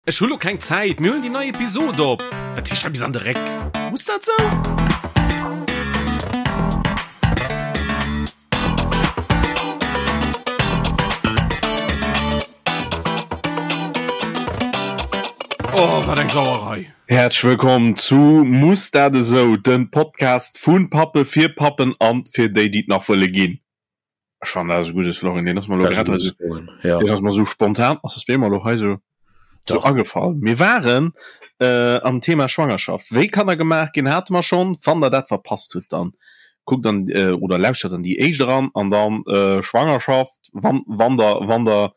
Ech hu lo keng Zäit, mir huelen déi nei Episod op. Wat heescht hei bis an de Réck? Muss dat sou? Oh, wat eng Sauerei! Häerzlech wëllkomm zu Muss dat esou? dem Podcast vu Pappe fir Pappen an fir déi, déi et nach wëlle ginn. Ech fannen dat ass e gudde Slogan, deen ass mer elo grad hei sou, ja. deen ass mer sou spontan, ass das mir elo hei sou, sou agefall. Mir waren äh, am Thema Schwangerschaft. Wéi Kanner gemaach ginn, hate mer schonn. Wann der dat verpasst hutt, dann kuckt an äh, oder lauschtert an déi éischt eran an dann äh, Schwangerschaft, wann, wann der, wann der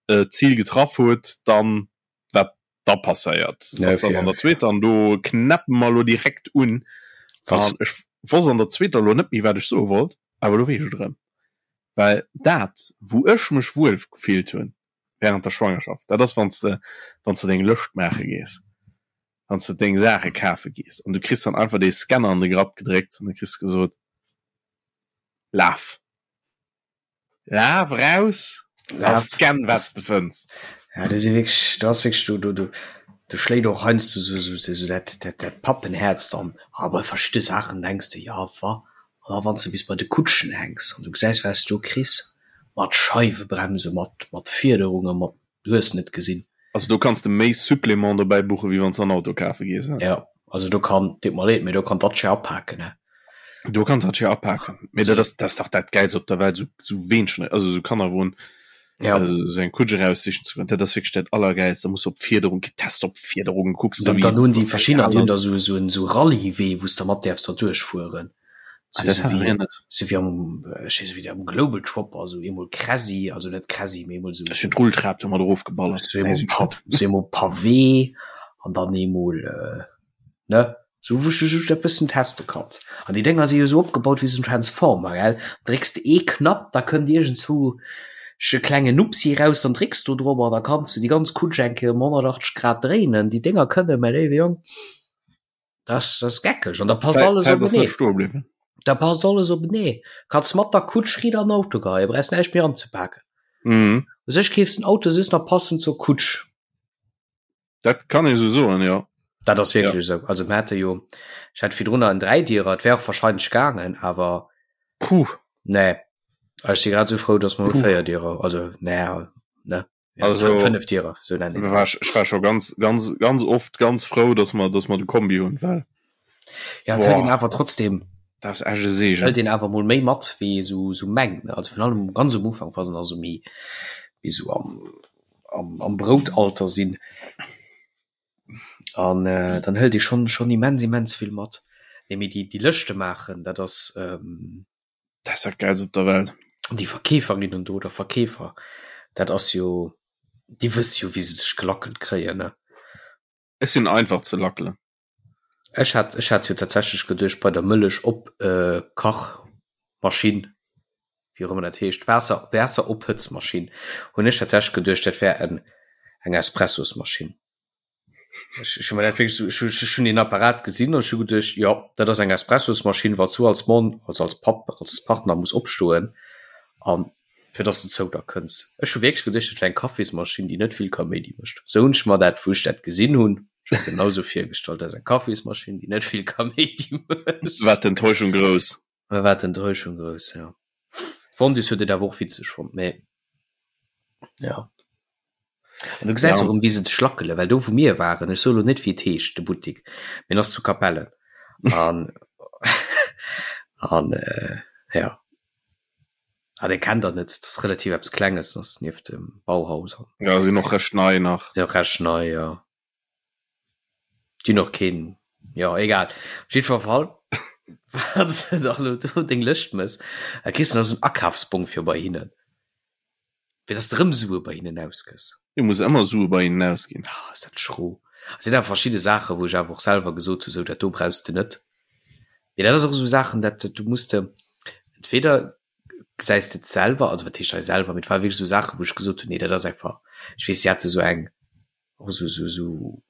äh, d'Zil getraff hutt, dann wat da passéiert Ja, ass dann an der zweeter an do knäppen mer lo direkt un. Was? An ech wosst an der zweeter lo net méi wat ech soe wollt, awer lo weess ech et erëm. Well dat wou ech mech wuel gefillt hunn während der Schwangerschaft, dat ass wann s de wann s de deng Lëscht maache gees, wann s de deng Saache kafe gees an du kriss dann einfach dee Scanner an de Grapp gedréckt an da kriss de gesot, laf. Laf raus a scann wat s de fënns. Ja, du si wierklech, du ass wierklech, du, du, du, du schléit och heiansdo sou, sou, sou, sou dat, dat, dat Pappenhäerz dann. A bei verschidde Saachen denks de, ja wa, an da wann s de bis bei de Kutschen hänks an du gesäis wat s du do kriss, mat Scheiwebremse, mat, mat Fiederungen, mat du hues net gesinn. Also do kanns de méi Supplément dobäi buchen, wéi wann s de en Auto kafe gees, he? Jo, also do kann, deet mer leed, mee do kann d'Dacia apaken, he? Do kann d'Dacia apaken, mee dat ass, dat ass dach dat Gäilst op der Welt, esou, esou Weenchen, also esou Kannerwon, Ja. esou eng Kutsch eraussichen ze goen, dat ass wierklech dat Allergäilst. Da muss op Fiederung, getest op Fiederung, kucks de Dann, wéi dann hunn déi verschiddener, déi egal hunn da ass. esou, esou en, esou Rallye-Wee, wou s de mat däerfs da duerchfueren. Ah, Sou, dat sou hat wéi, mir net. sou wéi am, ech weess net, wéi dat am Global Chopper, sou eemol Crazy, also net Crazy, mee eemol sou. Ech hunn d'Rulltrap domat erofgeballert. Sou eemol Pa, sou eemol Pavé an dann eemol, ne, sou wou s du just e bëssen teste kanns. An déi Dénger si jo sou opgebaut wéi sou en Transformer, gell, drécks de ee Knapp, da kënnt iergendzwou e klengen Nupsi raus, dann drécks du drop an da kanns de déi ganz Kutsch eng Kéier ëm 180 Grad dréinen. Déi Dénger kënnen, mäi léiwe Jong. Das, das geckeg an da passt alles Zäit ass net openee. stoe bliwwen. Da passt alles openee. Kanns mat der Kutsch riit an den Auto geheien, brauchst näischt méi anzepaken. Mhm. U sech keefs den Auto just nach passend zur Kutsch. Dat kann ee sou soen, jo. Dat ass wierklech esou. Also mir hate jo, ech hat virdrunner en Dräidierer, et wär och wahrscheinlech gaangen, awer Puh. nee. Ech si grad esou frou, dass mer elo Puh. Véierdierer, also nee, ne. Ja, Also, fënnef Dierer, sou nennen war ech, ech war scho ganz, ganz, ganz oft ganz frou, dass mer, dass mer de Kombi hunn, well Ja, et hëlt een awer trotzdem, dat ass echt e Segen. hëlt een awer mol méi mat, wéi ee sou, sou mengt, ne. Also virun allem ganz um Ufank, wa se nach sou méi, méi sou am, am, am Broutalter sinn. An äh, dann hëlt ee schonn, schonn immens, immens vill mat. Nee, mee déi, déi Lëschte maachen, dat ass, ähm, Dat ass dat Gäilst op der Welt. Déi Verkeeferinnen do oder Verkeefer, dat ass jo, déi wësse jo wéi se dech gelackelt kréien, ne? Ech sinn einfach ze lackelen. Ech hat, ech hat jo tatsächlech geduecht bei der Mëllech op Kachmaschinn, wéi och ëmmer dat heescht, Waasser, Waasserophëtzmaschinn, hunn ech tatsächlech geduecht, dat wär en, eng Espressosmaschinn. Ech, ech hu mir dat wierklech sou, ech hu, ech hunn deen Apparat gesinn an ech hu geduecht, jo, dat ass eng Espressosmaschinn, wann s du als Mann, also als Papp, als Partner muss opstoen an fir dass de zou der kënns. Ech hu wierklech geduecht, dat wär eng Kaffismaschinn, déi net vill Kaméidi mécht. Sou hunn ech mer dat, wou ech dat gesinn hunn, ech mer genau sou virgestallt, dat ass eng Kaffismaschinn, déi net vill Kaméidi mécht. War d'Enttäuschung grouss. Da war d'Enttäuschung grouss, jo. D'Fondis huet et awer och witzeg fonnt, mee ja. An du gesäis Ja. och erëm, wéi se dech lackelen, well do wou mir waren, ech soe lo net wéi et heescht, de Buttik, mee en ass zu Capellen an an äh, ja. Ah, dee kennt der net, dat ass relativ eppes Klenges, ass nieft dem Bauhaus an Ja, sinn och recht nei nach. sinn och recht nei, jo. Déi hunn och keen, jo egal. Op jiddwer Fall, wann s de dann elo do deng Lëscht mëss, da kriss de nach esou en Akafsbong fir bei hinnen, fir dass de erëm Sue bei hinnen ausgëss. Du muss ëmmer Sue bei hinnen ausginn. Ah, ass dat schro. Et sinn awer verschidde Saachen, wou ech awer och selwer gesot hu, sou dat do brauchs de net. Mee dat ass och esou Saachen, dat du muss de entweder gesäis de et selwer, also wat heescht hei selwer, mee et ware wierklech esou Saachen, wou ech gesot hunn, nee dat ass einfach, ech weess, si hate sou eng, Och sou, sou, sou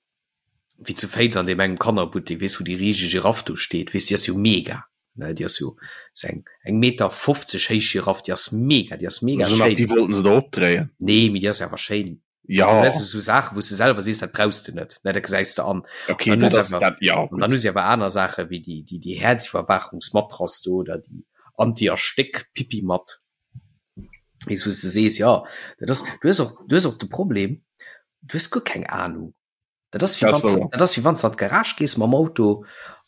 wéi zu Féiz an deem engem Kannerbuttek, weess, wou déi riseg Giraff do steet, weess, déi ass jo mega, ne, déi ass jo sou eng, eng Meter 50 héich Giraff, déi ass mega, déi ass mega Also nach schéin. déi wollten se der opdréien. Nee, mee déi ass awer schéin. Ja. Weißt du, so Sachen, wo du selber siehst, dat brauchst du net, ne, dat gesäis du an. Okay, Dann dat hues ass awer, dat, ja, an dann gut. hu si awer aner Saachen, wéi déi, déi, déi Häerziwwerwaachungsmatrass do oder déi Anti-Erstéck-Pipi-Matt. Weess, wou s de sees, ja, dat ass, du hues och, du hues och de Problem, du hues guer keng Ahnung. Dat ass wéi Dat wann s, wouer. dat ass wéi wann s de an d'Garage gees mam Auto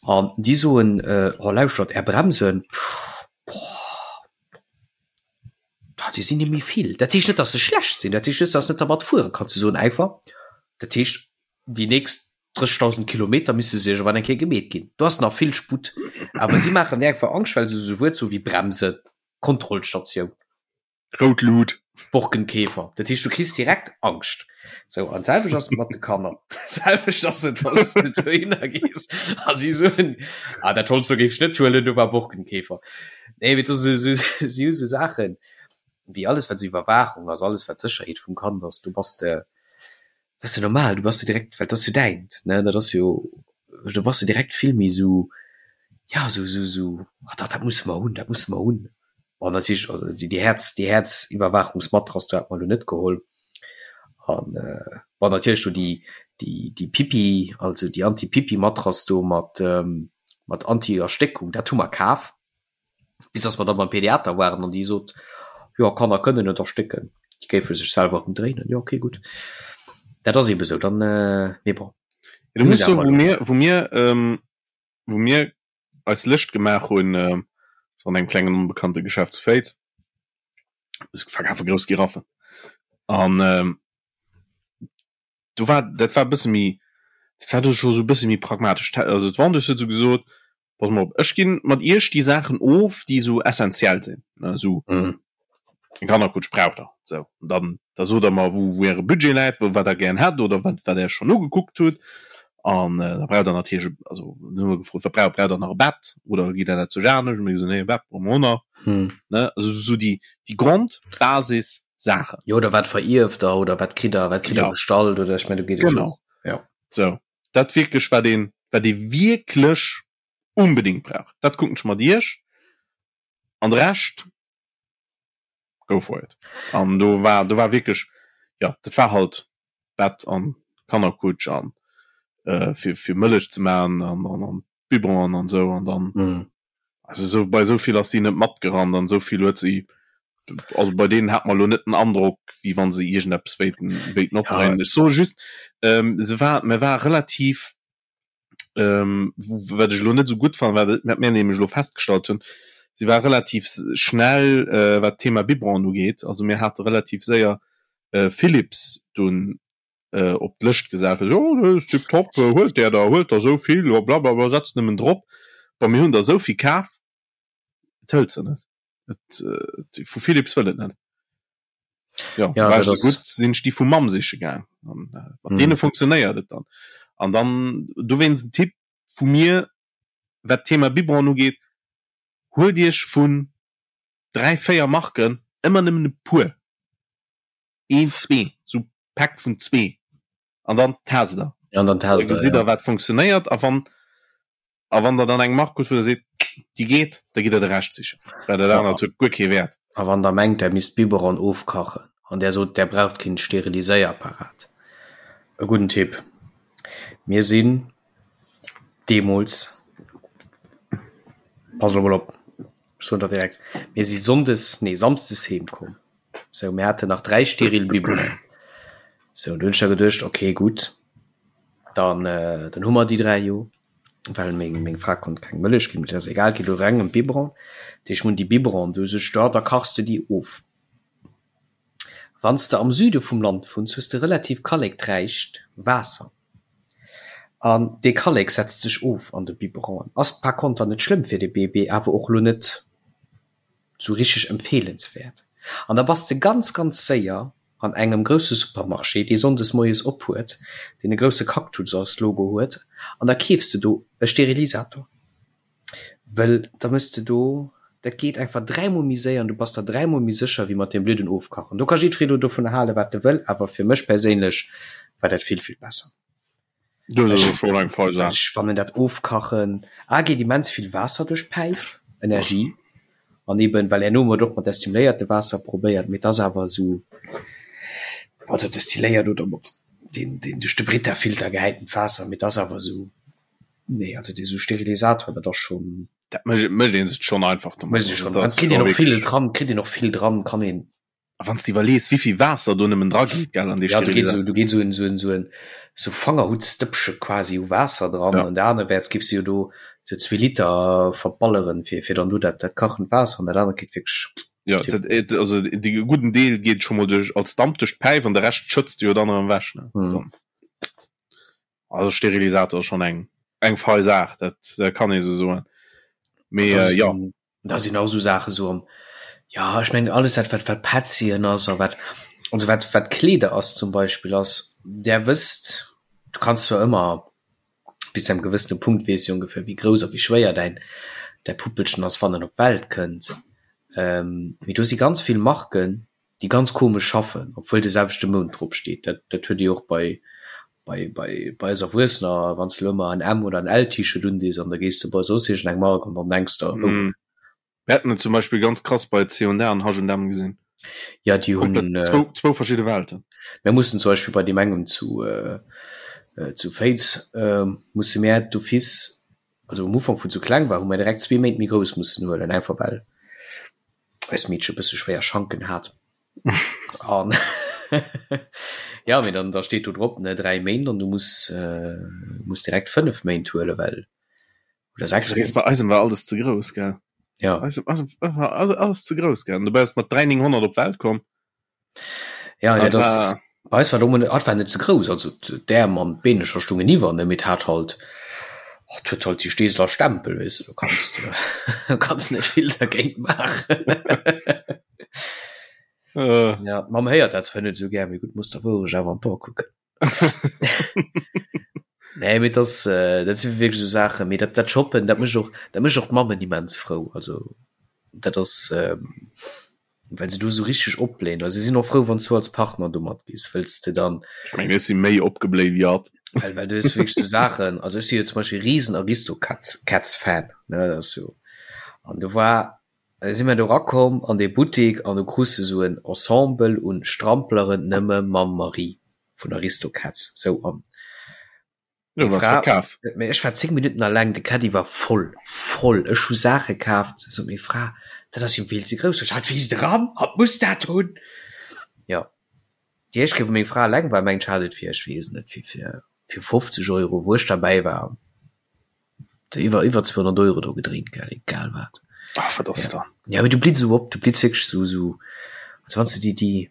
an déi soen, äh, oh lauschtert, är Bremsen, boah, ah, déi sinn net méi vill. Dat heescht net, dass se schlecht sinn, dat heescht just, dass net dermat fuere kanns. Se soen einfach, dat heescht, déi nächst 30.000 Kilometer misse se iergendwann eng Kéier gemeet ginn. Do ass nach vill Sputt. Awer si maachen dir einfach Angscht, well se esou Wuert soe wéi Bremsen, Kontrollstatioun. Rout Lut. Borkenkäfer. Dat heescht, du kriss direkt Angscht. Sou, an d'selwecht ass et mat de Kanner. D'selwecht ass et, wann s du dohinner gees a si soen, ah, dat Holz do géif ech net huelen, do war Borkenkäfer. Nee, mee dat si si hu sou Saachen, wéi alles, wat sou Iwwerwaachung ass, alles, wat Sécherheet vum Kand ass, do bass de, dat ass jo normal, du bass jo direkt, well dat ass jo däint, ne, dat ass jo, do bass de direkt vill méi sou, ja, sou, sou, sou, ah dach, dat musse mer hunn, dat musse mer hunn. Bon, natierlech, also déi, déi Häerz, déi Häerziwwerwaachungsmatrass, do hat mer elo net geholl. An bon, natierlech do déi, déi, déi Pipi, also déi Anti-Pipi-Matrass do mat, mat Anti-Erstéckung, dat hu mer kaf. Bis dass mer da beim Pediater waren an déi sot, jo Kanner kënnen net erstécken, déi géife sech selwer ëmdréinen. Jo okay gutt, dat ass eebe sou dann, mee bon. Du muss soen, wou mir, wou mir, wou mir eis Lëscht gemaach hunn, sou an engem klengen onbekannte Geschäft zu Féiz, se verkafe grouss Giraffen an do war, dat war e bësse méi, dat war do scho sou e bësse méi pragmatesch. Also d'Vendeuse huet sou gesot, Pass mol op, ech ginn mat iech déi Saachen of, déi sou essentiell sinn, ne, sou eng Kannerkutsch braucht der, sou. An dann, da sot der mer, wou, wou äre Budget läit, wou, wat der gären hätt oder wat, wat der schonn ugekuckt hutt. An da braucht der natierlech, also dann hu mer gefrot, wat braucht, braucht der nach e Bett oder gitt der dat zu Janesch? Hu mir gesot, nee, e Bett brauche mer och nach, ne, also sou déi, déi Grondbasis-Saachen. Jo, oder wat verierft der oder wat kritt der, wat kritt der gestallt oder ech mengen, do geet et jo Genau. och, jo. Sou. Dat wierklech wat een wat ee wierklech unbedingt brauch, dat kucken ech mat iech an de Rescht go for it. An do war do war wierklech jo dat war halt Bett an Kannerkutsch an fir fir Mëllech ze man an an an Biberon an esou an dann Also esou bei esou vill ass si net matgerannt an esou vill huet si, also bei deenen hat mer elo net den Androck, wéi wann se iergendeppes wéilten wéilten opdréinen. Ech soe just, ähm, se war, mer war relativ, ähm, wat ech elo net esou gutt fannen, wat wat mir nämlech elo festgestallt hunn, si war relativ schnell, äh, wat d'Thema Biberon ugeet. Also mir hate relativ séier, äh, Philips dunn op d'Lëscht gesat fir oh dat ass tip top, huelt där der, huelt der esou vill, blablabla, setzt nëmmen drop. Bon, mir hunn der esou vill kaf, et hëlt se net. Et vu Philips wëll et net. Jo, Ja, war dat ech esou ass. gutt, sinn ech déi vu Mamm siche gaang an mat deene funktionéiert et dann. An dann dowéinst en Tipp vu mir, wat d'Thema Biberon ugeet, huelt iech vun 3, 4 Marken ëmmer nëmmen e puer. Een, zwee, sou Päck vun zwee an dann test der. An dann test der, gesitt der wat funktionéiert a wann a wann der dann eng Mark hutt wou der seet déi geet, da gitt der de Rescht sichen, well dat anert huet guer kee Wäert. A wann der mengt der misst Biberon ofkachen an där sot där braucht keen Steriliséierapparat, e gudden Tipp, mir sinn deemools, pass elo mol op, ech soen der direkt, mir si Sonndes, nee Samsdes heem komm. Sou, mir haten nach 3 steril Biberonen. Sou, du hunn ech da geduecht, okay, gutt, dann, äh, dann hu mer déi 3 jo, well meng, meng Fra konnt keng Mëllech ginn, mee dat ass egal, et geet elo reng ëm d'Biberon. Dat heescht, mir hunn déi Biberonen do, sot ech, da, da kachs de déi of. Wann s de am Süde vum Land wunns, hues de relativ kallekträicht Waasser. An dee Kallek setzt sech of an de Biberonen. Ass par konter net schlëmm fir de Bébé, awer och elo net sou richteg empfeelenswäert. An da bass de ganz ganz séier an engem grousse Supermarché, dee sonndes moies op huet, deen e grousse Cactus als Logo huet, an da keefs de do e Sterilisator. Wëll da mëss de do, dat geet einfach dräimol méi séier an du bass der dräimol méi sécher wéi mat deem blöden Ofkachen. Do ka jiddweree lo dovun hale wat e wëll, awer fir mech perséinlech war dat vill vill besser. Dat ass och schon eng fein Saach. Ech fannen dat Ofkachen a geet immens vill Waasser duerch d'Päif, Energie, an eben well herno hu mer et och mat destiléierte Waasser probéiert, mee et ass awer esou. Also destilléiert oder mat deen deen duerch de Brita-Filter gehäitent Waasser, mee et ass awer esou, nee also dee sou Sterilisator, dat ass schonn. Dat mécht mécht ee sech schonn einfach domat. Mécht ee schonn, an kritt een och vill dran, kritt een och vill dran, kann een. A wann s de iwwerlees, wéivill Waasser do nëmmen dra geet, gell, an dee Ja, do geet esou, do geet esou en, esou en, esou en, esou Fangerhuttstëppche quasi u Waasser dran. Ja. An der anerwäerts giffs de jo do esou zwee Liter verballeren, fir, fir dann do dat, dat kachend Waasser an dat anert geet wierklech. Ja, dat, et, also de gudden Deel geet scho mol duerch als Damp duerch d'Päif an de Rescht schëtz de jo dann erëm ewech, ne? Mhm. Also Sterilisator ass schonn eng, eng fei Saach, dat, dat kann ee sou soen. Mee, äh, ja. Da sinn och esou Saachen esou am, ja ech mengen alles dat wat wat Petzien ass a wat also wat wat Kleeder ass zum Beispill ass, där wësst, du kanns zwar ëmmer bis zu engem gewëssene Punkt weess de ongeféier wéi grouss a wéi schwéier däin däi Puppelchen ass wann en op d'Welt kënnt, mee do si ganz vill Marken déi ganz komesch schaffen, obwuel de selwechte Mount drop steet. Dat, dat huet ee jo och bei, bei, bei, bei eis Erwuessener, wann s de elo ëmmer en M oder en L-T-Shirt undees an da gees de bei soss iergend eng Mark an dann denks de, oh. Mm. Mir haten et zum Beispill ganz krass bei C&A an H&M gesinn. Ja, déi hunn. Komplett zwou, zwou verschidde Welten. Mir mussen zum Beispill bei deem engem zu, zu Féiz, musse mir d'office, also um Ufank wou et sou kleng war, hu mir direkt zwee Méint méi grouss mussen huelen, einfach well eist Meedche bësse schwéier Schanken hat. An ja, mee dann da steet do drop ne 3 Méint an du muss äh, muss direkt 5 Méint huele well oder 6 Méint. Bei eisem war alles ze grouss gell. Ja. Eisem, eisem war alles ze grouss gell. An dobäi ass mat 3900 op d'Welt komm. Ja, ja das bei eis war do hat war net ze grouss, also d'Äerm an d'Beenecher stungen iwwer ne, mee hat halt hat huet halt déi Steeseler Stempel weess de, du kanns du kanns net vill dergéint maachen. Äh. Ja, d'Mamm héiert dat zwar net esou gär, mee gutt, muss der Wourecht awer an d'Ae kucken. Nee, mee das, äh, dat si wierklech esou Saachen, mee dat dat Shoppen, dat mécht och dat mécht och d'Mammen immens frou, also dat ass ähm, well se do sou richteg opbléien. Also si sinn och frou, wann s du als Partner do matgees, wëlls de dann. Ech mengen, ech si méi opgebléit wéi hatt. Well, well du hues wierklech sou Saachen, also ech si jo zum Beispill risen Aristocats Cats Fan, ne, dat ass jo, an do war, si mir do rakomm an dee Buttik an du krus de sou en Ensemble un Strampleren nëmme mam Marie vun Aristocats, sou an. Jo, Meng was Fra, verkaf. mee ech war 10 Minutten alleng, de Caddie war voll, voll. Ech hu Saache kaaft, sot meng Fra, dat ass jo vill ze grouss. Sot ech, Hatt wiisst eran, hatt muss dat hunn. Jo, déi éischt Kéier, wou meng Fra alleng war, mengt ech, hat et fir, ech weess et net, fir, fir, fir 50 Euro, wou ech derbäi war, iwwer, iwwer 200 Euro do gedréint, gell, egal wat. Ach, wat ass Ja. dann? Ja, mee du blitz esou op, du blitz wierklech esou, esou, also wann s de déi, déi,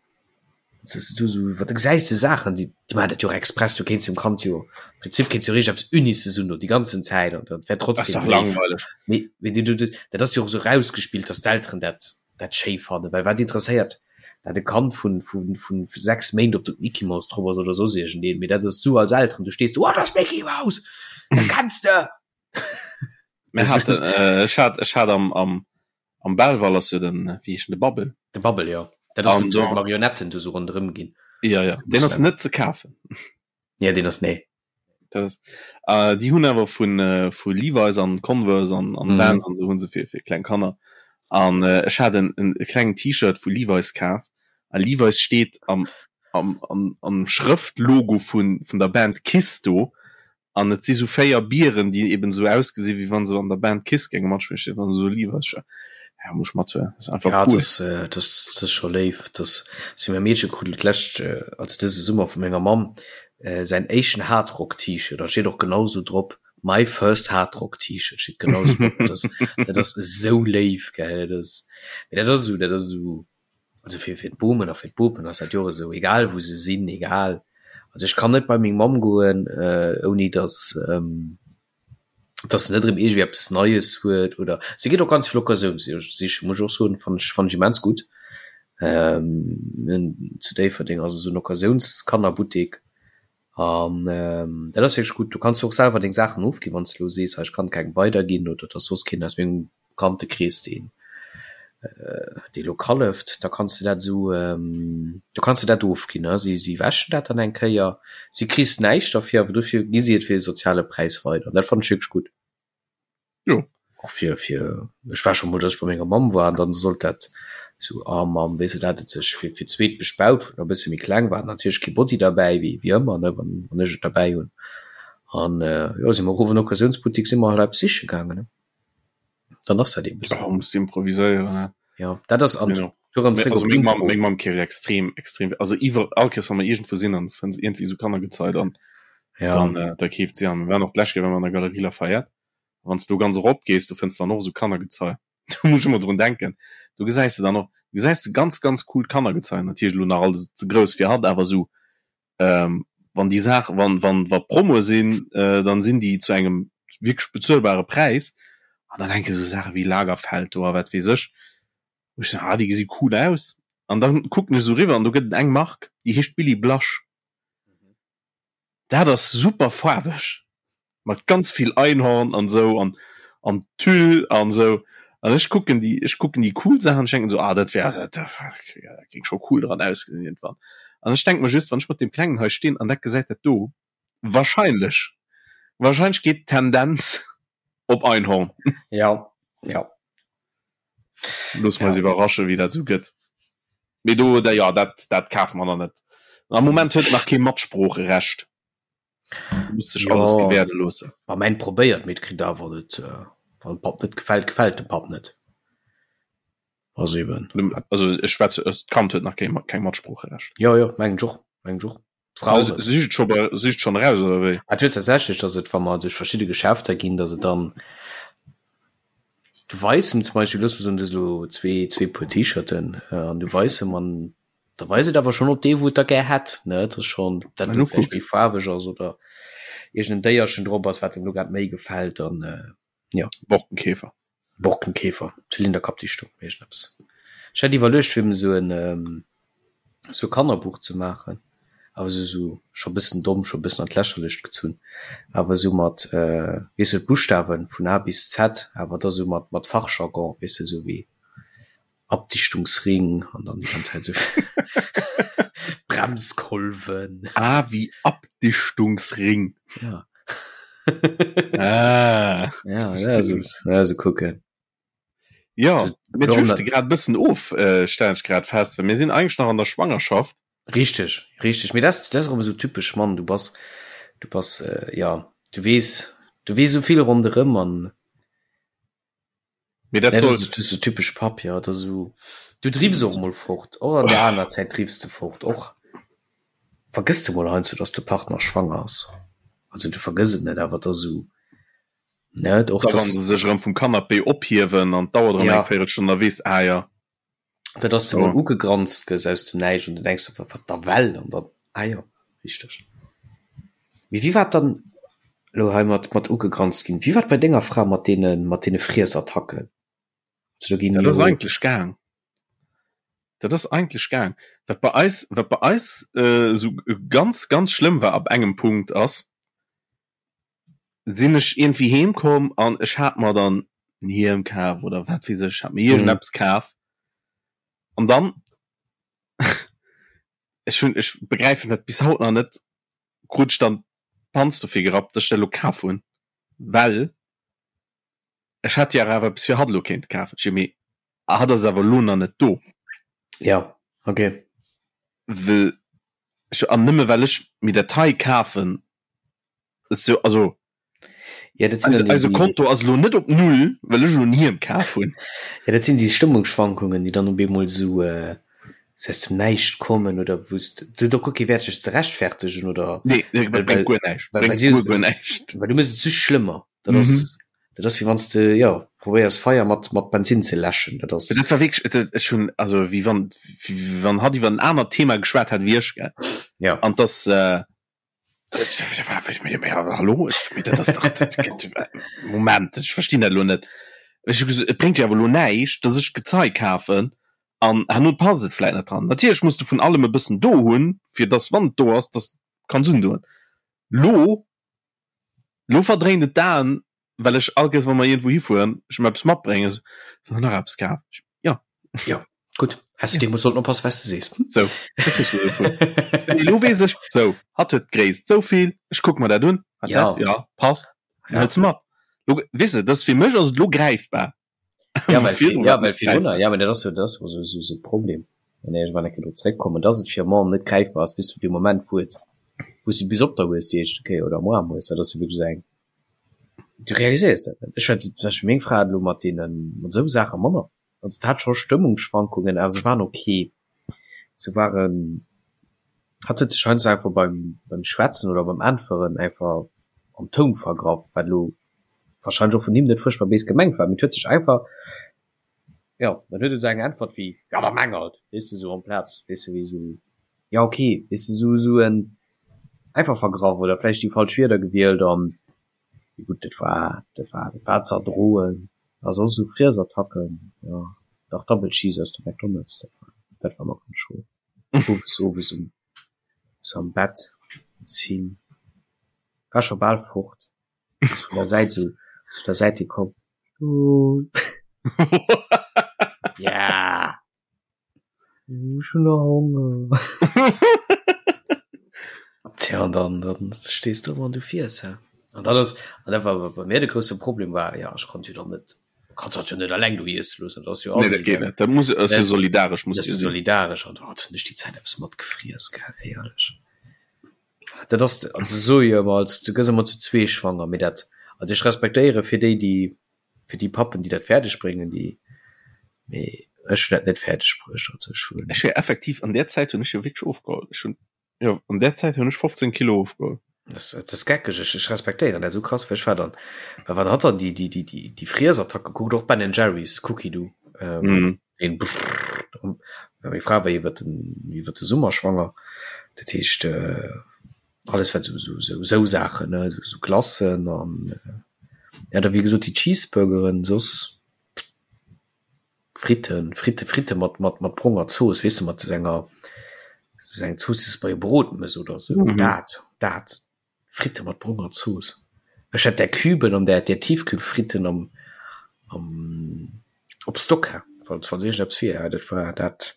du so wat du gesäis de Saachen déi déi maachen dat jo och express du kéints dem Kand jo am Prinzip kéints jo richteg eppes Unices un do déi ganzen Zäit an dat wär Ass trotzdem dach léif langweileg. mee mee du du dat ass jo och esou rausgespillt dass d'Elteren dat dat schéi fannen well wat interesséiert dat e Kand vun vun vun 6 Méint ob do d'Mickey Mouse drop ass oder soss iergendeen mee dat ass du als Elteren du stees do oh dat ass d'Mickey Mouse dat kenns de Mir haten äh, ech hat ech hat am am Am Belval ass jo den, wéi heescht en, de Bubble. De Bubble, jo. Dat ass, wou d'Marionetten do sou ronderëm ginn. Ja, ja. Deen ass net ze kafen. Ja, deen ass, nee. Dat ass, äh, déi hunn awer vun, äh, vu Levi's an Converse an, an mm. Vans an sou hunn se fir, fir kleng Kanner. An äh, ech hat en, en e klengen T-Shirt vu Levi's kaf. A Levi's steet am, am, am, am Schrëftlogo vun, vun der Band Kiss do. An et si sou 4 Bieren, déi eben sou ausgesinn, wéi wann se an der Band Kiss géinge matspillen, steet dann esou Levi's Shirt. Ja, muss ech mathuelen, ass einfach Ja, cool. das, äh, das, das ass scho léif. Das si mäi Meedche krut d'lescht, äh, also dëse Summer vu menger Mamm äh, säin éischten Hardrock-T-Shirt. Da steet och genau sou drop, My first Hardrock-T-Shirt steet genau sou drop. Dat ass, dat ass esou léif, gell. Dat ass, mee dat ass esou, dat ass esou. Also fir fir d'Bomen a fir d'Bopen ass dat jo och esou, egal wou se sinn, egal. Also ech kann net bei meng Mamm goen, ouni datt datt se net erëm iergendwéi eppes Neies huet oder si geet och ganz vill Occasioun sichen, muss ech och soen, fannen ech fannen ech immens gutt. Zu Déifferdeng ass esou en Occasiounskannerbuttek An dat ass wierklech gutt. Du kanns jo och selwer deng Saachen ofginn, wann s de elo sees, hei ech kann kengem weiderginn oder et ass soss keen aus mengem Bekanntekrees, deen dee elo kalleft, da kanns de dat esou, du kanns de dat ofginn. Si si wäschen dat dann eng Kéier, si kriss näischt derfir, awer dofir gi si et fir e soziale Präis weider. An dat fannen ech wierklech gutt. Jo. Och fir, fir, ech war scho mol, datt ech bei menger Mamm war an dann sollt dat. Sou, ah Mamm, weess de, dat hat et sech fir fir d'zweet bespaut, wou en e bësse méi kleng war, natierlech kee Body derbäi, wéi wéi ëmmer, ne, wann wann ech et derbäi hunn. An jo, si mer erof an Occasiounsbuttik, si mer halt eppes siche gaangen, ne. Dann ass dat eben esou. Ja, muss improviséieren, ne. Ja, dat ass an Genau. Du erëm zréck op Meng Mamm, meng Mamm keeft extrem, extrem, also iwwer all Kéiers, wa mer iergendwou sinn an fënns iergendwéi esou Kannergezei, dann, ja. dann äh, da keeft si an. Mir waren och d'lescht Kéier, wa mer an der Galerie Lafayette, wann s du ganz erop gees, du fënns dann och esou Kannergezei. Do muss ech ëmmer drun denken. Do gesäis de dann och, gesäis de ganz, ganz coolt Kannergezei, natierlech elo nach alles ze grouss fir hatt, awer esou ähm, wann déi Saach, wann, wann, wa Promoe sinn, äh, dann sinn déi zu engem wierklech bezuelbare Präis. An dann hänke sou Saache wéi Lagerfeld do a wat weess ech. Wou ech soen, ah, déi gesi cool aus. An dann kucken ech sou riwwer an do gëtt et eng Mark, déi heescht Billy Blush. Dat ass super faarweg mat ganz vill Einhorn an sou an an Tüll an sou. An ech kucken déi ech kucken déi cool Saachen, ech denken sou, ah dat wär dat dat géing scho cool dran ausgesinn iergendwann. An ech denke mer just, wann ech mat deem Klengen hei stinn an dat gesäit dat do, wahrscheinlech wahrscheinlech geet d'Tendenz op Einhorn. Ja, ja. Loosse mer eis iwwerrasche wéi dat sou gëtt. Mee do da ja dat dat kafe mer nach net. Am Moment huet nach kee Matsproocherecht. Muss sech alles gewäerde loossen. Ma mäin probéiert, mee et kritt awer net. Wann dem Papp net gefält, gefält dem Papp net. Also eben. Also ech schwätze, d'Kand huet nach keng keng Matsproocherecht. Jo jo, mengen ech och, mengen ech och. Frau also, sicht schon bei, sicht schon raus oder wéi? Et huet tatsächlech, dass et, wa mer duerch verschidde Geschäfter ginn, dass et dann du weis em zum Beispill, looss mer soen, du hues elo zwee, zwee Puer T-Shirten äh, an du weis em an da weis et awer schon op dee, wou et da gär hätt, ne? Dat ass schon, dat elo vläicht méi faarweg ass oder iergend en Déierchen drop ass, wat em elo grad méi gefält an äh, ja. Borkenkäfer. Borkenkäfer, Zylinderkappdichtung, iergendeppes. Ech hat iwwerluecht fir em esou en esou e Kannerbuch ze maachen, awer esou esou scho bëssen domm, scho bëssen an d'Lächerlecht gezunn, awer esou mat weess de d'Buschtawen vun A bis Z, awer da esou mat mat Fachjargon, weess de esou wéi Abdichtungsring an dann déi ganz Zäit esou Bremskolwen. A wéi Abdichtungsring. Ja. Ah. Ja, ja, so, ja, so kucken. Ja, mir drifte grad bëssen of, äh, stellen ech grad fest, well mir sinn eigentlech nach an der Schwangerschaft. Richteg, richteg. Mee dat, dat ass erëm esou typesch Mann. Du bass, du bass, äh, ja, du weess, du weess esou vill ronderëm an Mee dat Ja, soll. das ist, das ist so typisch Papp, ja, das so, du drifts och mol fort, och an der aner Zäit drifts du fort, och vergëss du mol heiansdo, dass de Partner schwanger ass. Also du vergëss et net, awer da so, net och Da wann dass, se sech erëm vum Canapé ophiewen an d'dauert erëm Ja. eng Véirelstonn, da weess, ah ja. dat dass du mol Oh. ugegranzt gëss aus dem Näischt an du denks so, wat da well an dann, ah jo, richteg. Mee wéi war et dann elo hei mat mat ugegranzt ginn? Wéi war et bei denger Fra mat deene mat deene Friesattacken? Also do ginn Dat ass jo eigentlech gaang. Dat ass eigentlech gaang. Wat bei eis, wat bei eis äh, esou ganz, ganz schlëmm war ab engem Punkt ass, sinn ech iergendwéi heem komm an ech hat mer dann en Hiem kaf oder wat weess ech, hat mir iergendeppes kaf an dann ech hunn, ech begräifen dat bis haut nach net, krut ech dann d'Panz dofir gerappt, dass ech dat elo kaf hunn, well ech hätt jo awer eppes fir hatt elo kéinte kafen. Ech mee hatt ass awer elo nach net do. Ja, okay. Well ech, an nëmme well ech mir dat hei kafen, So, also ja, dat sinn eise, eise Konto ass lo net op Null, well ech lo en Hiem kaf hunn. Ja, dat sinn déi Stëmmungsschwankungen, déi dann op eemol esou äh, aus dem Näischt kommen oder wou s du da guer kee Wäert dech ze rechtfertegen oder Nee, nee, well, bréngt well, guer näischt. well, well Bréngt si guer, guer näischt. well du méchs et just schlëmmer. Dat ass, Mhm. dat ass wéi wann s de ja probéiers Feier mat mat Bensinn ze läschen. Dat ass Dat war wierklech, et, ech hunn, also wéi wann, wéi wann hatt iwwer en anert Thema geschwat hätt wéi ech, gell. ja. An dass, äh, Hallo Moment ech verstinn dat lo net. Ech hu gesot, et bréngt jo awer lo näischt, datt ech Gezei kafen an herno passt et vläit net dran. Natierlech muss de vun allem e bëssen do hunn, fir datt wann et do ass, datt de kanns undoen. Lo lo verdréint et d'Aen, well ech all Kéiers wa mer iergendwou hifueren, ech em eppes matbréngen, sou nach eppes kaf. Ja. Ja, gutt. Häss du deemools sollten oppassen, wat s de sees. Sou, wat hues du dovun? Nee, lo weess ech, sou, hatt huet d'Gréisst sou vill, ech kuck mer dat un, hat Ja. dat, ja, passt, Ja. hëls mat. Lo, weess de, dat ass fir mech ass et lo gräifbar. Ja, well, ja, well virdrunner, ja, dat ass jo dat ass jo sou sou Problem. Wann ech wann ech do zréckkommen, dass et fir Mom net gräifbar ass bis zu dem Moment wou et wou s de bis op der hues déi éischte Kéier oder am Aarm hues, dat ass jo wierklech eng du realiséiers dat net. Ech war zum Beispill meng Fra hat elo mat deenen mat esou Saache manner. Also et hat scho Stëmmungsschwankungen, awer se waren ok. Se waren Hatt huet sech heiansdo einfach beim beim Schwätzen oder beim Äntweren einfach am Toun vergraff, wat elo wahrscheinlech och vun him net fuerchtbar béis gemengt war, mee et huet sech einfach, jo, dann huet e sou eng Äntwert wéi, jo da meng halt, weess de, sou amplaz, weess de, wéi sou, jo ok, weess de, sou sou en einfach vergraff oder vläicht déi falsch Wierder gewielt an, mee gutt, dat war dat war dat war ze erdroen. A soss sou Friesattacken, jo, dach Double Cheese aus dem McDonald's, dat war dat war ëmmer ganz schro. Owes owes um sou am Bett um 10 war scho bal fort ass vun der Säit sou ass vun der Säit hir komm ja ech hunn nach Honger Tja an dann dann stees du ëmmer an du fiers hä an dat ass an dat war bei mir de grousse Problem war ja ech konnt jo dann net Kannst dat jo net alleng do iesse loossen, dat ass jo Nee, dat geet net. Dat muss ass jo solidaresch muss jo solidaresch an hat hunn ech déi Zäit eppes mat gefriess gell éierlech. Dat ass also se soe jo ëmmer als du gëss ëmmer zu zwee schwanger, mee dat also ech respektéiere fir déi déi fir déi Pappen déi dat fäerdeg bréngen déi mee ech hunn dat net fäerdeg bruecht also ech hunn. Ech hu effektiv an där Zäit hunn ech jo wierklech ofgeholl. Ech hunn Jo, an där Zäit hunn ech 15 Kilo ofgeholl. Das, das ass geckeg, ech, ech respektéieren dat esou krass, well ech war dann, well wann hatt dann déi, déi, déi, déi, déi Friesattack gekuckt, och Ben Jerry's Cookie do, ähm, mm. den brrr, meng Fra war iwwer den, iwwer de Summer schwanger, dat heescht, äh, alles wat sou, sou, sou, sou Saachen, ne, sou, sou Glacen an, äh, ja, da wéi gesot déi Cheeseburgeren, soss Fritten, Fritte, Fritte mat, mat, mat bronger Zooss, weess de, mat sou enger, sou eng Zooss, déi s de bei e Brot mëss oder sou. Mhm. Dat, dat. Fritte mat bronger Zooss. Ech hätt där Küben an där, där Tiefkühlfritten am, am, op Stock, falls, falls iergendeppes wier, dat war dat.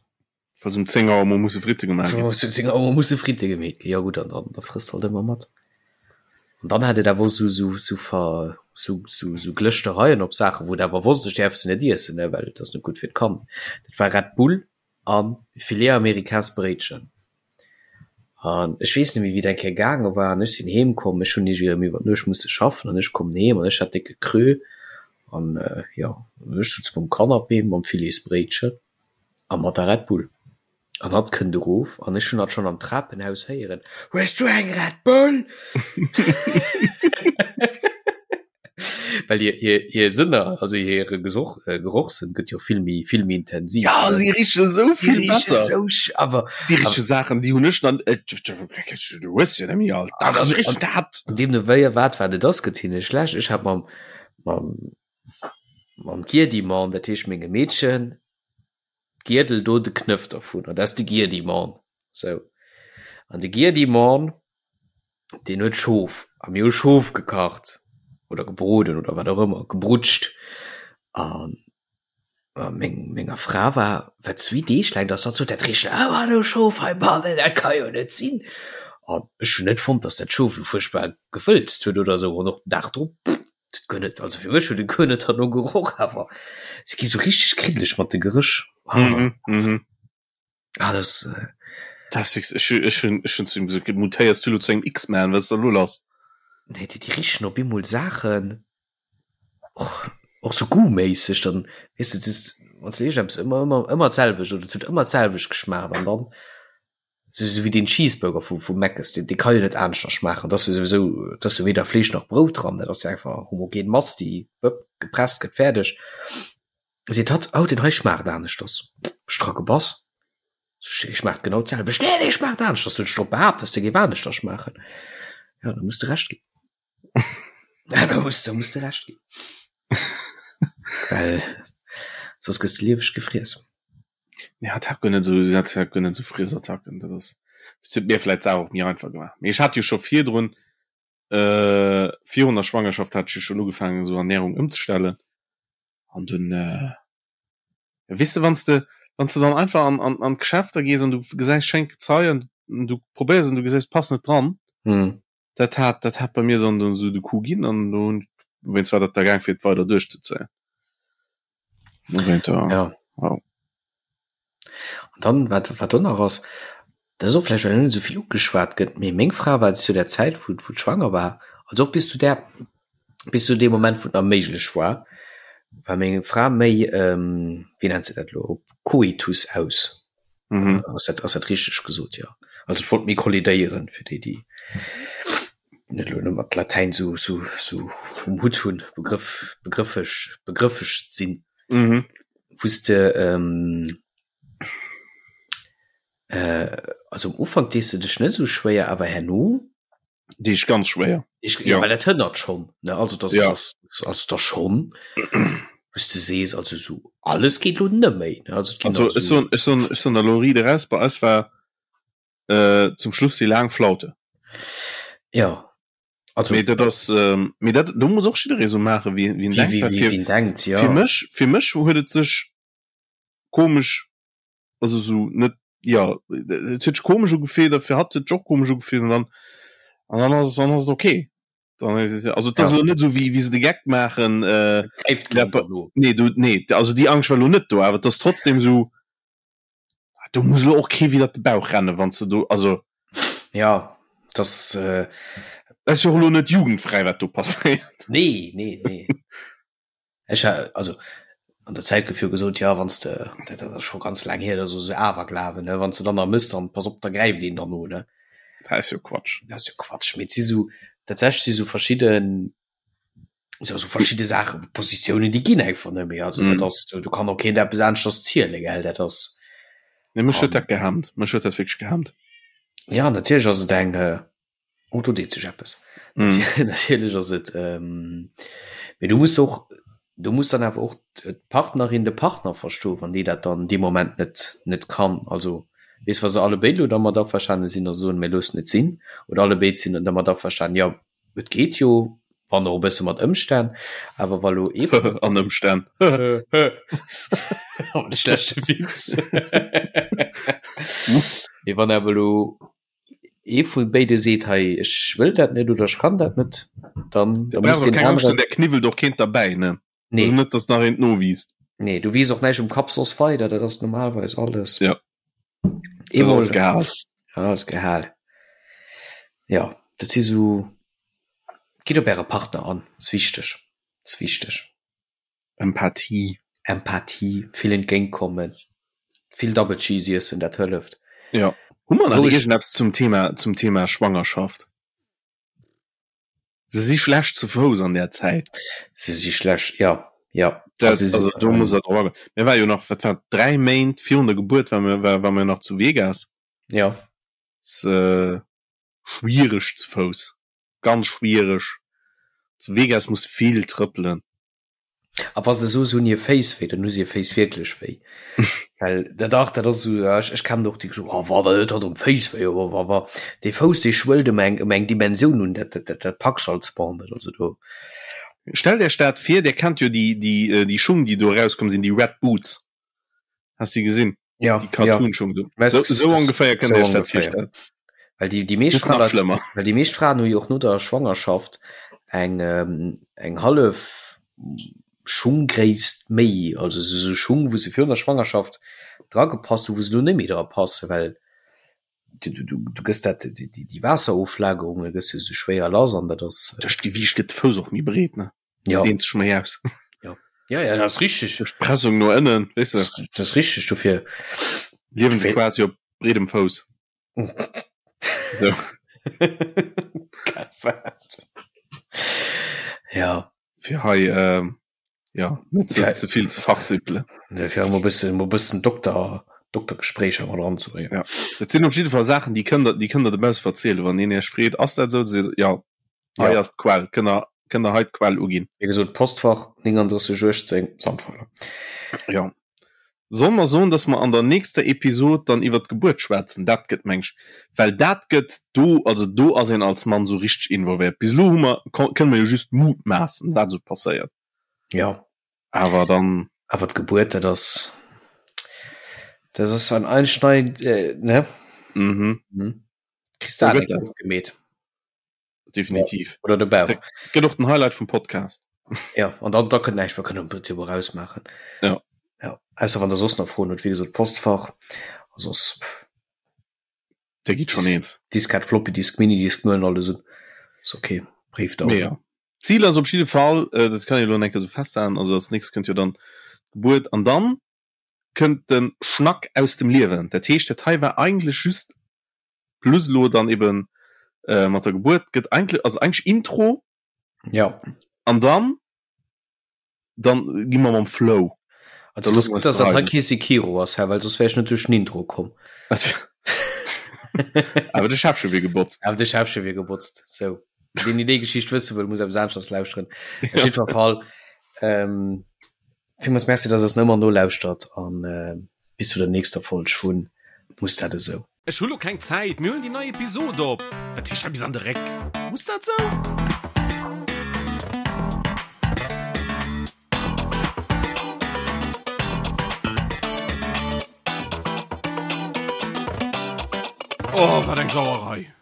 Falls um 10 Auer mol musse Fritte gemaach ginn. Falls um 10 Auer mol musse Fritte gemeet ginn, jo gutt, an dann da frësst halt ëmmer mat. An dann hat et awer och sou sou sou ver sou sou sou Glëschtereien op Saachen, wou et awer wosst, ech däerf se net iessen, ne, well et ass net gutt fir d'Kand. Dat war Red Bull a Filet Americains Bréitchen. An ech weess net méi wéi et eng Kéier gaange war an ech sinn heem komm, ech hunn iergendwéi erëm iwwer d'Nuecht musse schaffen an ech kommen heem an ech hat décke Creux an jo, ech sutz um Canapé mam Filetsbréitchen. A mat der Red Bull. An hatt kënnt erof an ech hunn hatt schonn am Trapenhaus héieren, Hues du eng Red Bull? Well hir, hir, hir Sënner, also hire Gesoch, äh, Gerochssënn gëtt jo vill méi, vill méi intensiv. Ja, si riche sou vill besser. Sou, awer déi riche Saachen, déi hunn ech dann, äh, du hues jo net méi alt. Dach, ech richen dat. An deemno wéi a wat wat et ass, gëtt hinne schlecht. Ech hat mam, mam Mam Giedimann, dat heescht mengem Meedchen, d'Giedel do, de Knëff dervun, dat ass de Giedimann. Sou. An de Giedimann, deen huet Schof, a mir hu Schof gekacht oder gebroden oder wat och ëmmer, gebrutscht. An meng, menger Fra war, war zwee Deeg laang, dass hatt sot, dat richt awer no Schof heibannen, dat ka jo net sinn. An ech hunn net fonnt, dass dat Schof elo fuerchtbar gewëlzt huet oder esou. An och den Dag drop, Dat guer net, also fir mech huet et guer net derno geroch, awer se gi sou richteg kriddeleg mat de Geréch. Ah, mhm, mhm. Ah, das, äh das ist, ech, ech, hun, ech hun zu ihm gesagt, mutéiers du lo zu engem X-Man, was ist da lo lass? Nee, déi, déi richen op eemol Saachen, och, och sou goûtméisseg, dann, weess du, das, wann s du iergendeppes ëmmer, ëmmer, ëmmer d'selwecht, oder et huet ëmmer d'selwecht geschmaacht an dann Sou sou wéi deen Cheeseburger vu vu Mc's, deen dee ka jo net aneschter schmaachen. Dat ass jo souwisou, dat ass jo weder Fleesch nach Brout dran, dat ass jo einfach homogen Mass, déi wëpp gepresst gëtt, fäerdeg. Seet hatt, oh deen hei schmaacht aneschters. Ech dra gebass, dee schmaacht genau d'selwecht. Nee, dee schmaacht aneschters, huet ech drop behaapt, dass dee géif aneschter schmaachen. Jo, da muss de Recht ginn. Ja, da muss, da muss de Recht ginn. Well soss gëss de lieweg gefriess. Nee, hat hat guer net esou, hat hat guer net esou Friesattacken. Dat ass, dat huet mir vläit d'Saach och méi einfach gemaach. Mee ech hat jo scho virdrun, äh, virun der Schwangerschaft hat ech jo schonn ugefaangen esou Ernährung ëmzestellen. An dunn, äh, weess de, wann s de, wann s de dann einfach an, an, an d'Geschäfter gees an du gesäis schéint Gezei an du probéiers an du gesäis, passt net dran. Mhm. Dat hat, dat hat bei mir dann dann esou de Coup ginn an do hunn, wéinst war dat da gaang fir et weider duerchzezéien. Ja. Wow. An dann wat wat do nach ass, dat ass och vläicht well net esou vill ugeschwat gëtt, mee meng Fra war zu der Zäit wou wou schwanger war, also och bis zu där bis zu deem Moment wou et nach méiglech war, war meng Fra méi ähm, wéi nennt se dat elo, op Koitus aus. Mhm. Ass dat ass dat richteg gesot? Jo. Also et wollt méi kollidéieren, fir déi déi net elo mat Latäin sou sou sou um Hutt hunn, Begrëff begrëffeg begrëffeg sinn. Mhm. Wou s de ähm, äh, also am Ufank dees de dech net sou schwéier, awer herno Déi ech ganz schwéier. Ich, ja. Ja. Well dat hënnert schon ne also das, Ja. das, das, also das schon wous de sees also so alles geet lo net méi ne also, et ginn Also nach ech soen ech soen ech soen der lo riit eraus, bei eis war äh, zum Schluss déi laang Flaute. ja also Mee dat ass ähm, mee dat do muss och jidderee sou maache wéi wéi en wie, denkt, wie, well wie, fir wie en denkt ja fir mech fir mech huet et sech komesch also sou net ja et huet sech komesch ugefillt a fir hatt huet sech och komesch ugefillt an dann an dann ass dann ass et okay. Dann ass es also et ass Ja. elo net sou wéi wéi se de Geck maachen äh, gräift ja, keen derno. nee du nee also déi Angscht war elo net do, awer et ass trotzdem sou do muss elo och kee widder de Bauch rennen wann s de do also Ja das äh, ass jo och elo net jugendfräi wat do passéiert. nee nee nee Ech ha also an der Zäit gouf jo gesot, ja wann s de, dat ass scho ganz laang hier, dat ass esou Awerglawen, ne, wann s de dann nach mëss, dann pass op, da gräift een dann no, ne. Dat ass jo Quatsch. Dat ass jo Quatsch, mee et si sou, tatsächlech si sou verschidden, jo sou verschidde Saachen, Positiounen, déi ginn einfach net méi. Also dat ass, do kann och keen eppes aneschters zielen, gell, dat ass. Nee, mech huet dat gehemmt, mech huet dat wierklech gehemmt. Ja, natierlech ass et eng, Oh, do deet sech eppes. Mm. Natierlech ass et ähm, mee du muss och du muss dann awer och d'Partnerin de Partner verstoen, wann déi dat dann dee Moment net net kann. Also weess wa se alle béid lo dermat averstane sinn a soen, mir loossen et sinn oder alle béid sinn dermat averstanen, jo et geet jo, wann och e bësse mat Ëmstänn, awer wa lo ee vun An Ëmstänn. De schlechte Witz. Mee wann awer lo ee vu béide seet hei ech wëll dat net oder ech kann dat net, dann da muss Brauch deen keng Angscht anere hunn, der kniwwelt och keent derbäi, ne? Nee. Also net, dass nach eent nowiisst. Nee, du wiisst och näischt um Kapp soss weider, dat ass normalerweis alles. Ja. Dat ass Eemol alles gehal. Ja, alles gehal. Ja, dat si sou, gitt op äre Partner an, ass wichteg, ass wichteg. Empathie. Empathie, vill entgéintkommen, vill Double Cheese iessen, dat hëlleft. Ja. Hu mer nach Wou ech- iergendeppes zum Thema, zum Thema Schwangerschaft? Se si schlecht zu Fouss an där Zäit. Se si schlecht, ja, ja. Dat, Also, also do muss der drop agoen. Mir war jo nach, wat war, 3 Méint virun der Gebuert war mir, war, war mir nach zu Vegas. Ja. S, äh, schwiereg zu Fouss. Ganz schwiereg. Zu Vegas muss vill trëppelen. A wa se soe se hunn hir Féiss wéi, dann hu se hir Féiss wierklech wéi. Well dat dach, dat ass esou, ech, ech kennen och déi gesot, oh wa, dat huet um Féiss wéi, wa, wa, wa. Dee Fouss, dee schwëllt ëm eng, ëm eng Dimensioun un, dat, dat, dat, dat packs als Ball net. Also do. Stellt Iech dat vir, Dir kennt jo déi, déi, déi Schung, déi do erauskomm sinn, déi Red Boots. Has de gesinn? Ja, Die Cartoon-Schung do. Weißt So, du, so ongeféier kënnt so Dir iech dat ongeféier. virstellen. Well déi, déi meescht Just nach Fraen, schlëmmer. well déi meescht Fraen hu jo och no der Schwangerschaft eng, ähm, eng hallef Schunggréisst méi, also sou sou Schung, wou se virun der Schwangerschaft dragepasst hu, wou se lo net méi dra passen, well du, du, du, du gëss dat, déi, déi, déi Waasseroflagerunge gëss jo sou schwéier lass an dat ass, Duerch d'Gewiicht gëtt de Fouss och méi breet, ne? ja. Dehnt sech méi aus. Ja, ja, ja, dat ass richteg. Duerch d'Pressung no ënnen, weess de. Dat ass richteg, dofir. Liewen se quasi op breedem Fouss. So. Ja. Fir hei, ähm, ja, net ze, ze vill ze fachsimpelen. Nee, fir emol bëssen, emol bëssen Dokter, Doktergespréicher mat eranzebréngen. Ja. Dat sinn op jidde Fall Saachen, déi kënnt der, déi kënnt der dobausse verzielen. Wann een Iech freet, ass dat esou, da seet Der, ja, hei Ja. ass d'Quell, kënnt der, kënnt der hei d'Quell uginn. Wéi gesot, Postfach 3918 Sandweiler. Ja. Solle mer soen, dass mer an der nächster Episod dann iwwer d'Gebuert schwätzen? Dat gëtt, meng ech, well dat gëtt do, also do ass een als Mann sou richteg involvéiert. Bis elo hu mer, kënne mer jo just mutmaassen, wat esou passéiert. Ja. Awer dann. Awer d'Gebuert, dat ass, dat ass ein einschneidend, äh, ne? Mhm. Mhm. Kriss dat net gutt gemeet. Definitiv. Ja. Oder de Bauch. Gëtt och den Highlight vum Podcast. Ja, an dann da kënnt näischt, mer kënnen am Prinzip och ausmaachen. Ja. Ja, ausser wann der soss nach Froen hutt, wéi gesot Postfach a soss Der gitt schon eens. Diskett, Floppy Disk, Minidisk, mir huelen alles un. Ass ok, Bréifdauwe. Mee ja. Zil ass op jidde Fall, äh, dat kann ee lo enke sou festhalen, also als nächst kënnt jo dann d'Gebuert an dann kënnt de Schnack aus dem Liewen. Dat heescht, dat hei war eigentlech just plus lo dann eben äh, mat der Gebuert gëtt eigentlech, also eigentlech Intro. Ja. An dann dann gi mer mam Flow. Also das gut, dass dat hei kee Sekiro ass, well soss wär ech net duerch den Intro komm. Awer de Schäffche wier gebotzt. Awer de Schäffche wier gebotzt. Sou. Deen déi déi Geschicht wësse wëll, muss eppes aneschters lauschteren. Op jiddwer Fall, ähm, villmools Merci, dass der eis nach ëmmer nolauschtert an äh, bis zu der nächster Folg vun Muss dat esou? Ech hu lo keng Zäit, mir huelen déi nei Episod op. Wat heescht hei bis an de Réck? Muss dat sou? Oh, wat eng Sauerei!